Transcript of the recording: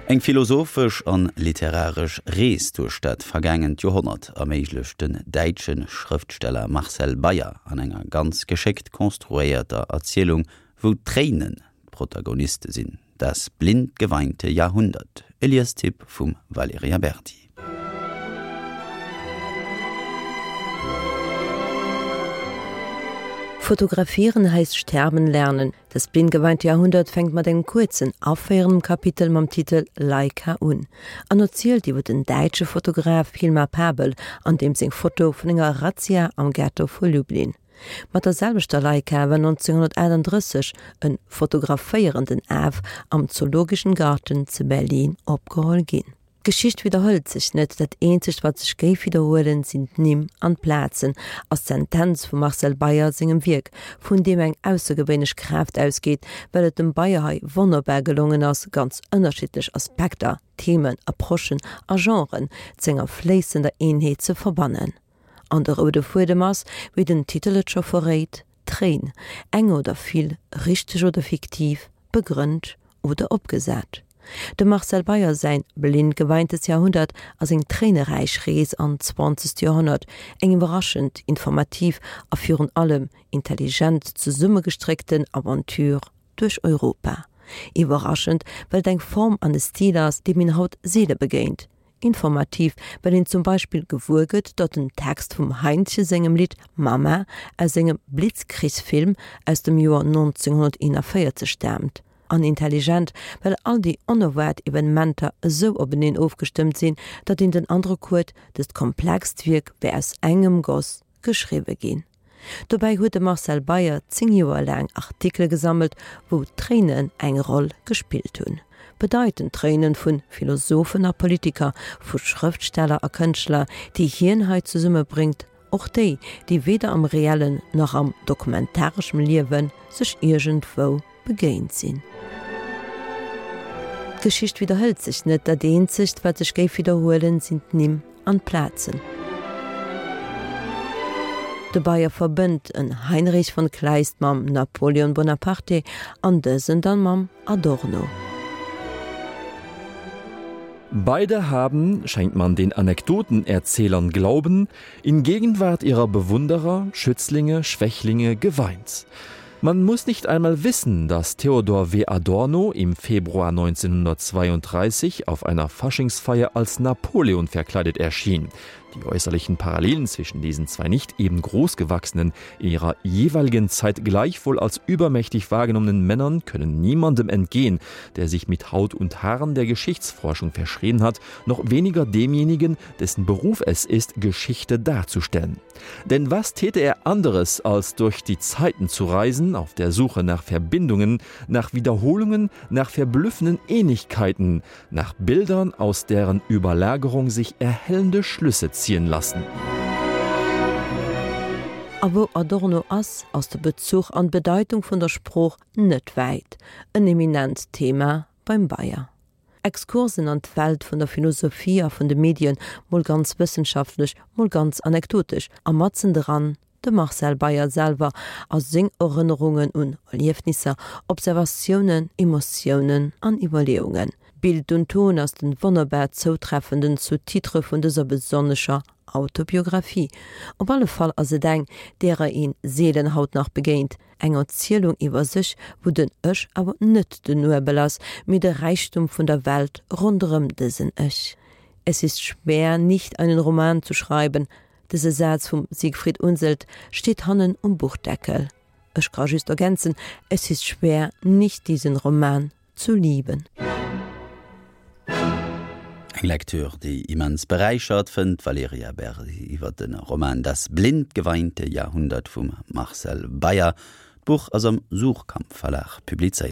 Eng philosophesch an literaresch Rees duerch dat vergaangent Joerhonnert erméiglecht den däitsche Schrëftsteller Marcel Beyer an enger ganz geschéckt konstruéierter Erzielung, wou d'Tréinen d'Protagoniste sinn, Das blind geweinte Jahrhundert, e Liestipp vum Valerija Berdi. Fotografieren heißt sterben lernen. Das blind geweinte Jahrhundert fänkt mat engem kuerzen, aféierendem Kapitel mam Titel Leica un an erzielt iwwer den däitsche Fotograf Hilmar Pabel an deem seng Foto vun enger Razzia am Ghetto vu Lublin. Mat der selwechter Leica war 1938 e fotograféierenden Af am Zoologischen Garten zu Berlin opgeholl ginn. D'Geschicht widderhëlt sech net, dat eenzegt wat sech géif widderhuelen, sinn d'Nimm an d'Plazen, ass d'Sentenz vum Marcel Beyer sengem Wierk, vun deem eng aussergewéinlech Kraaft ausgeet, well et dem Beyer hei wonnerbar gelongen ass, ganz ënnerschiddlech Aspekter, Themen, Approchen a Genren z'enger fléissender Eenheet ze verbannen. An de roude Fuedem ass, wéi den Titel et scho verréit, d'Tréin, eng oder vill, richteg oder fiktiv, begrënnt oder opgesat. Dem Marcel Beyer säin Blind geweintes Jahrhundert ass eng tréineräich Rees an d'zwanzegt Joerhonnert, eng iwwerraschend, informativ a virun allem intelligent zesummegestréckten Aventure duerch Europa. Iwwerraschend, well et eng Form an e Stil ass, deem een haut seele begéint. Informativ, well een zum Beispill gewuer gëtt, datt den Text vum Heintje sengem Lidd Mama aus sengem Blitzkrieg-Film aus dem Joer 1941 staamt. An intelligent, well all déi onerwaart Evenementer esou openeen ofgestëmmt sinn, datt een den Androck huet, dëst komplext Wierk wär aus engem Goss geschriwwe ginn. Dobäi huet de Marcel Beyer 10 Joer laang Artikele gesammelt, wou Tréinen eng Roll gespillt hunn. Bedeitend Tréinen vu Philosophen a Politiker, vu Schrëftsteller a Kënschtler, déi hien hei zesummebréngt, och déi, déi weder am reellen nach am dokumentareschem Liewe sech iergendwou begéint sinn. D'Geschicht widderhëlt sech net, dat eenzegt, wat sech géif widderhuelen, sinn d'Nimm an d'Plazen. De Beyer verbënnt en Heinrich von Kleist mam Napoleon Bonaparte an dësen dann mam Adorno. Beide haben, schenkt man den Anekdotenerzählern Glauben, in Gegenwart ihrer Bewunderer, Schützlinge, Schwächlinge geweint. Man muss nicht einmal wissen, dass Theodor W. Adorno im Februar 1932 auf einer Faschingsfeier als Napoleon verkleidet erschien. Die äußerlichen Parallelen zwischen diesen zwei nicht eben großgewachsenen, in ihrer jeweiligen Zeit gleichwohl als übermächtig wahrgenommenen Männern können niemandem entgehen, der sich mit Haut und Haaren der Geschichtsforschung verschrien hat, noch weniger demjenigen, dessen Beruf es ist, Geschichte darzustellen. Denn was täte er anderes, als durch die Zeiten zu reisen, auf der Suche nach Verbindungen, nach Wiederholungen, nach verblüffenden Ähnlichkeiten, nach Bildern, aus deren Überlagerung sich erhellende Schlüsse ziehen lassen. A wou Adorno ass, ass de Bezuch an d'Bedeitung vun der Sprooch net wäit, en eminent Thema beim Beyer. Exkursen an d'Welt vun der Philosophie a vun de Medien, mol ganz wëssenschaftlech, mol ganz anekdotesch, a matzen dran de Marcel Beyer selwer a seng Erënnerungen un Erliefnisser, Observatiounen, Emotiounen an Iwwerleeungen. Bild und Ton ass den wonnerbar zoutreffenden Sous-titre vun dëser besonnescher Autobiographie. Op alle Fall ass et eng, därer een seelen haut nach begéint. Eng Erzielung iwwer sech, wou den Ech awer net den Nuebel ass, mee de Räichtum vun der Welt ronderëm dësen Ech. Es ist schwer, nicht einen Roman zu schreiben, dëse Saz vum Siegfried Unseld steet hannen um Buchdeckel. Ech ka just ergänzen, Es ist schwer, nicht diesen Roman zu lieben. Eng Lektür, déi immens beräichert, fënnt d'Valerija Berdi iwwer de Roman Das blind geweinte Jahrhundert vum Marcel Beyer. D'Buch ass am Suhrkamp Verlag publizéiert.